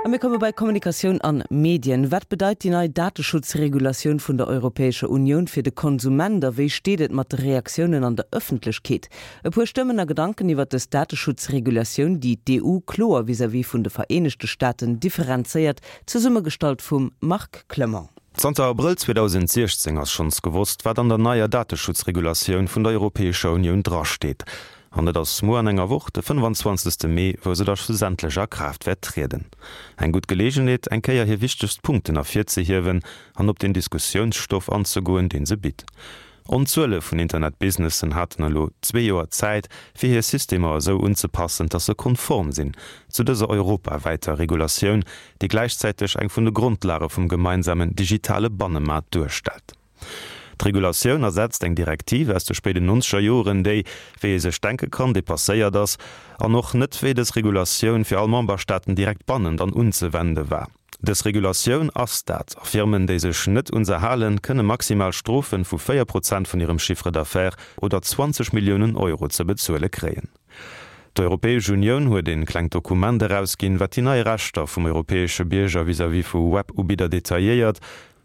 A mir komme bei Kommunikatioun an Medien. Wat bedeit déi nei Dateschutzregulatioun vun der Europäescher Unioun fir de Konsument a wéi steet et mat de Reaktiounen an der Ëffentlechkeet? E puer Stëmmen a Gedanken iwwert dës Dateschutzregulatioun, déi d'EU kloer vis-à-vis vun de Vereenegte Staaten differenzéiert, zesummegestallt vum Marc Clement. Zanter Abrëll 2016 ass schonns gewosst, wat an der neier Dateschutzregulatioun vun der Europäescher Unioun drasteet. An et ass muer an enger Woch, de 25. Mee, wou se da schlussendlech a Kraaft wäert trieden. Eng gutt Geleegenheet, eng Kéier hir wichtegst Punkten ervirzehiewen an op den Diskussiounsstoff anzegoen, dee se bitt. Onzuele vun Internetbusinessen haten elo zwee Joer Zäit, fir hir Systemer esou unzepassen, dass se konform sinn zu dëser europawäiter Regulatioun, déi gläichzäiteg eng vun de Grondlage vum gemeinsamen digitale Bannemaart duerstellt. D'Regulatioun ersetzt eng Direktiv aus de spéiden nonzeger Joren, déi, wéi ee sech denke kann, dépasséiert ass an och net wéi dës Regulatioun fir all Memberstaaten direkt bannend an unzewende war. Dës Regulatioun ass dat, a Firmen, déi sech net un se halen, kënne maximal Strofe vu 4 Prozent vun hirem Chiffre d'affaires oder 20 Milliounen Euro ze bezuele kréien. D'Europäesch Unioun huet een klengt Dokument erausginn, wat déi nei Rechter vum europäesche Bierger vis-à-vis vu Web-Ubidder detailléiert.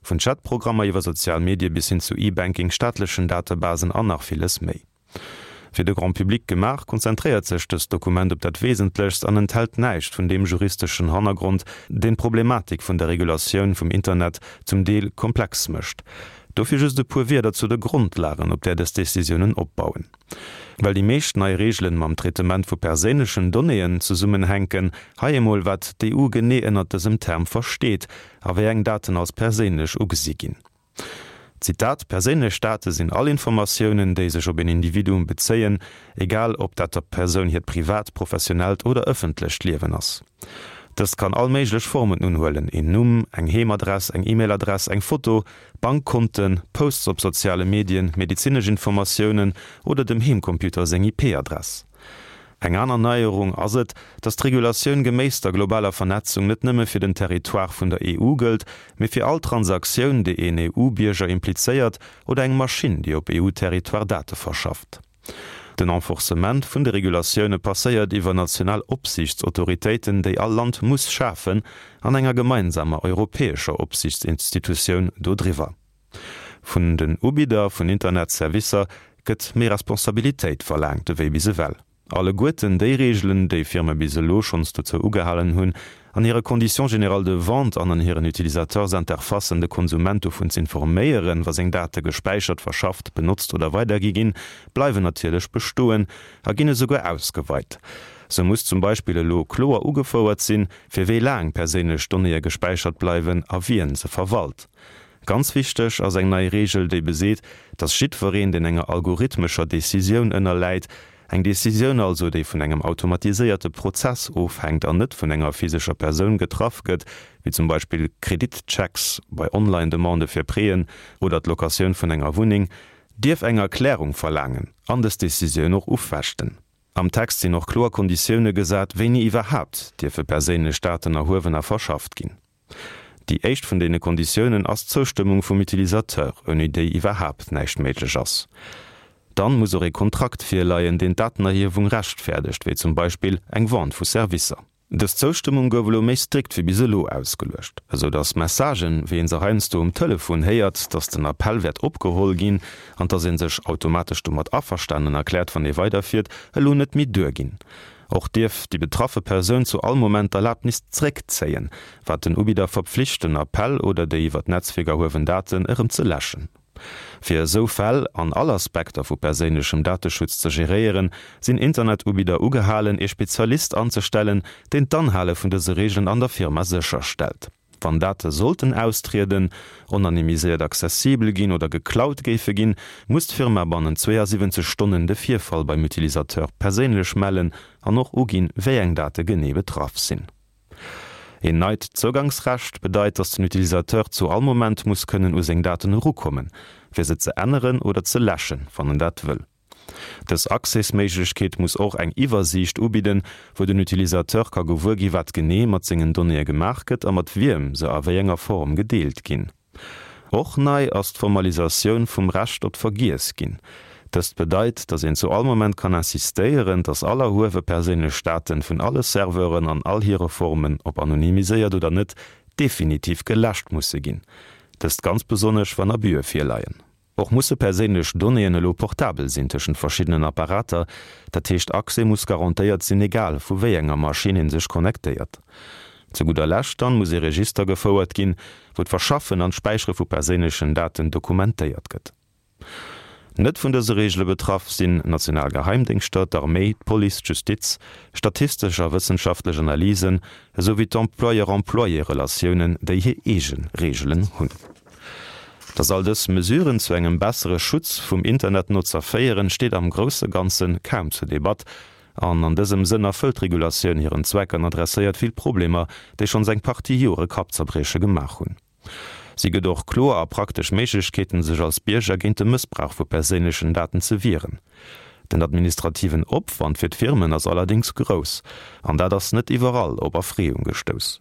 Vun Chatprogrammer iwwer sozial Medie bis hin zu E-Banking, staatlechen Datebasen an nach villes méi. Fir de Grand Public gemaach, konzentréiert sech dëst Dokument op dat Wesentlechst an enthält näischt vun deem juristeschen Hannergrond, deen d'Problematik vun der Regulatioun vum Internet zum Deel komplex mécht. Dofir just e puer Wierder zu de Grondlagen, op där dës Decisiounen opbauen. Well déi meescht nei Reegelen mam Traitement vu perséinlechen Donnéeën zesummenhänken, hei emol wat d'EU genee ënnert dësem Term versteet a wéi eng Daten als perséinlech ugesi ginn. Zitat, Perséinlech Date sinn all Informatiounen, déi sech op een Individuum bezéien, egal ob dat der Persoun hiert privat, professionellt oder ëffentlecht Liewen ass. Dëst kann all méiglech Formen unhuelen, een Numm, eng Heemadress, eng E-Mail-Adress, eng Foto, Bankkonten, Posts op soziale Medien, medezinesch Informatiounen oder dem Heemcomputer seng IP-Adress. Eng aner Neierung ass et, datt d'Regulatioun geméiss der globaler Vernetzung net nëmme fir den Territoire vun der EU gëllt, mee fir all Transaktioun, déi een EU-Bierger implizéiert oder eng Maschinn, déi op EU-Territoire Date verschafft. Den Enforcement vun de Regulatioune passéiert iwwer national Opsiichtsautoritéiten, déi all Land muss schafen, an enger gemeinsamer europäescher Opsiichtsinstitutioun dodriwwer. Vun den Ubidder vun Internetservicer gëtt méi Responsabilitéit verlaangt ewéi bis ewell. Alleguerten déi Reegelen, déi Firme bis elo schonns dozou ugehalen hunn, an hire Conditions générales de vente an an hiren Utilisateursinterfacen de Konsument dovun z'informéieren, wa seng Date gespäichert, verschafft, benotzt oder weidergi ginn, bleiwen natierlech bestoen a ginn esouguer ausgeweit. Sou muss zum Beispill elo kloer ugefouert sinn, fir wéi laang perséinlech Donnéeë gespäichert bleiwen a wien se verwalt. Ganz wichteg ass eng nei Reegel, déi beseet, dass jiddwereen, deen enger algorithmescher Decisioun ënnerläit, eng Decisioun also, déi vun engem automatiséierte Prozess ofhänkt an net vun enger physescher Persoun getraff gëtt, wéi zum Beispill Kreditchecks bei Online-Demandë fir Prêten oder d'Locatioun vun enger Wunneng, dierf eng Erklärung verlaangen an dës Decisioun och ufechten. Am Text sinn och kloer Konditioune gesat, wéini iwwerhaapt dierfe perséinlech Daten erhuewen a verschafft ginn. Déi éischt vun deene Konditiounen ass d'Zoustëmmung vum Utilisateur, ouni déi iwwerhaapt näischt méiglech ass. Dann muss och ee Kontrakt virleien, deen d'Datenerhiewung rechtfäerdegt, wéi zum Beispill eng Vente vu Servicer. Dës Zoustëmmung gouf elo méi strikt wéi bis elo ausgeluecht, esou dass Messagen, wéi een se heiansdo um Telefon héiert, dass den Appell wäert opgeholl ginn an dass ee sech automatesch domat averstanen erkläert, wann ee weiderfiert, elo net méi duerginn. Och dierf déi betraffe Persoun zu all Moment d'Erlabnis zréckzéien, wat den Ubidder verpflicht, den Appell oder déi iwwer d'Netzwierk erhuewen Daten erëm ze läschen. Fir esou Fäll an all Aspekter vu perséinlechem Dateschutz ze geréieren, sinn Internetubidder ugehalen, ee Spezialist anzestellen, deen d'Anhale vun dëse Reegelen an der Firma sécherstellt. Wann Date sollten austrieden, onanonymiséiert accessibel ginn oder geklaut géife ginn, muss d'Firma bannent 72 Stonnen de Virfall beim Utilisateur perséinlech mellen an och uginn, wéi eng Date genee betraff sinn. Een neit Zougangsrecht bedeit, dass den Utilisateur zu all Moment muss kënnen u seng Daten erukommen, fir se ze änneren oder ze läschen, wann en dat wëll. Dës Accès-Méiglechkeet muss och eng Iwwersiicht ubidden, wou den Utilisateur ka gewuer gi wat genee mat sengen Donnéeë gemaach gëtt a mat wiem se a wéi enger Form gedeelt ginn. Och nei ass d'Formalisatioun vum Recht op d'Vergiess ginn. Dëst bedeit, dass een zu all Moment kann insistéieren, dass all erhuewe perséinlech Daten vun alle Serveuren an all hire Formen, ob anonymiséiert oder net, definitiv geläscht musse ginn. Dëst ganz besonnesch, wann Abüe virleien. Och musse perséinlech Donnéeën elo portabel sinn tëschent verschiddenen Apparater, dat heescht Accès muss garantéiert sinn, egal vu wéi enger Maschinn ee sech connectéiert. Zu gudder Lescht dann muss ee Register gefouert ginn, wou d'Verschaffen an d'Späichere vu perséinlechen Daten dokumentéiert gëtt. Net vun dëse Reegele betraff sinn national Geheimdéngschter, d'Arméi, d'Police, d'Justiz, statistesch a wëssenschaftlech Analysen, esou wéi d'Employeur-Employé-Relatiounen, déi hir eege Reegelen hunn. Dass all dës Mesuren zu engem bessere Schutz vum Internetnotzer féieren, steet am grousse Ganze kaum zur Debatt. An an dësem Sënn erfëllt d'Regulatioun hiren Zweck an adresséiert vill Problemer, déi schonns eng Partie Jore Kappzerbrieche gemaach hunn. Si gëtt och kloer a praktesch Méiglechkeeten, sech als Bierger géint de Mëssbrauch vu perséinlechen Daten ze wieren. Den administrativen Opwand fir d'Firmen ass allerdéngs grouss, an dat ass net iwwerall op Erfreeung gestouss.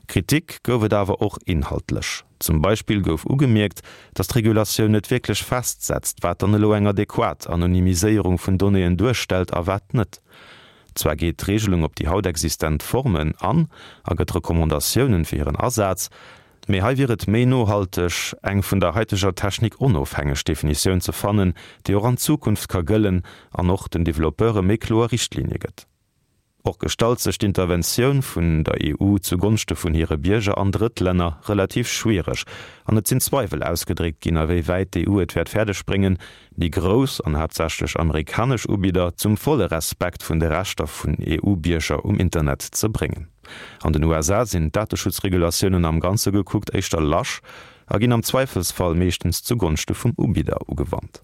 Kritik gouf et awer och inhaltlech. Zum Beispill gouf ugemierkt, datt d'Regulatioun net wierklech festsetzt, wat dann elo eng adequat Anonymiséierung vun Donnéeën duerstellt a wat net. Zwar geet d'Reegelung op déi haut existent Formen an a gëtt Recommandatiounen fir hiren Asaz, mee hei wier et méi nohalteg, eng vun der haiteger Technik onofhängeg Definitioun ze fannen, déi och an Zukunft ka gëllen an och den Developpeure méi kloer Richtlinie gëtt. Och gestalt sech d'Interventioun vun der EU zu Gonschte vun hire Bierger an Drëttlänner relativ schwiereg an et sinn Zweiwel ausgedréckt ginn, a wéi wäit d'EU et wäert fäerdeg bréngen, déi grouss an haaptsächlech amerikanesch Ubidder zum volle Respekt vun de Rechter vun EU-Bierger um Internet ze bréngen. An den USA sinn d'Dateschutzregulatiounen am Ganze gekuckt éischter lasch a ginn am Zweifelsfall meeschtens zu Gonschte vum Ubidder ugewannt.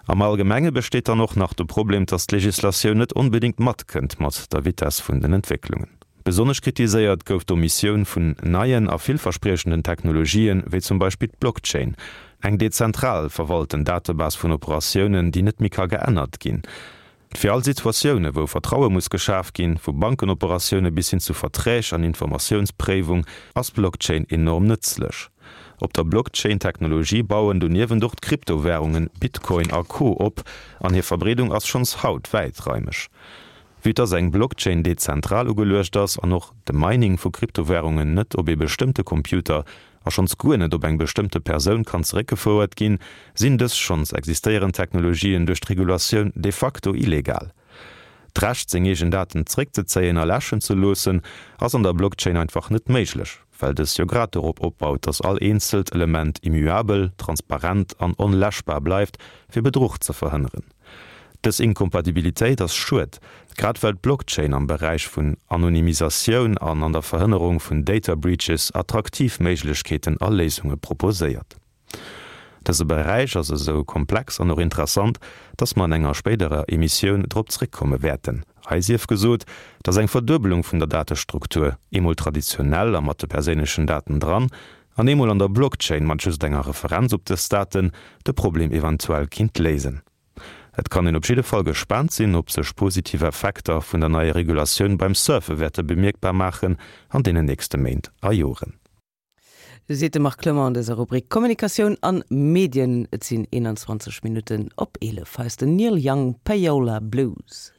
Am Allgemenge besteet dann och nach de Problem, dass d'Legislatioun net onbedéngt matkënnt mat der Vitess vun den Entwécklungen. Besonnesch kritiséiert gouf d'Omissioun vun neien a villverspriechenden Technologien, wéi zum Beispill d'Blockchain, eng dezentral verwalten Datebase vun Operatiounen, déi net méi ka geännert ginn. Fir all Situatioune wou Vertraue muss geschaf ginn, vu Bankenoperatioune bis hin zu Verträg an Informatiounspréiwung, ass d'Blockchain enorm nëtzlech. Op der Blockchain-Technologie bauen doniewent och d'Kryptowärungen Bitcoin a Co. Op an hir Verbreedung ass schonns haut wäitraimeg. Vue dass eng Blockchain dezentral ugeluecht ass an och de Mining vu Kryptowärungen net op ee bestëmmte Computer a schonns guer net op eng bestëmmte Persoun kann zeréckgefouert ginn, sinn dës schonns existéierend Technologien duerch d'Regulatioun de facto illegal. D'Recht seng eegen Daten zeréckzezéien a läschen ze loossen, ass an der Blockchain einfach net méiglech, well dës jo grad dorop opbaut, dass all eenzelt Element immuabel, transparent an onläschbar bleift, fir Bedruch ze verhënneren. Dës Inkompatibilitéit ass schued, grad well d'Blockchain am Beräich vun Anonymisatioun an an der Verhënnerung vun Data Breaches attraktiv Méiglechkeeten a Léisunge proposéiert. Dëse Beräich ass esou komplex an och interessant, dass mer an enger spéiderer Emissioun drop zréckkomme wäerten. Hei sief gesot, dass eng Verduebelung vun der Datestruktur, eemol traditionell a mat de perséinlechen Daten dran, an eemol an der Blockchain mat just enger Referenz op dës Daten, de Problem eventuell kinnt léisen. Et kann een op jidde Fall gespaant sinn, ob sech positiv Effekter vun der neier Regulatioun beim Surfe wäerte bemierkbar maachen an deenen nächste Méint a Joren. Seet de Marc Clement an dëser Rubrik Kommunikatioun an Medien. Et sinn 21 Minutten op 11. Hei ass den Neil Young, Payola Blues.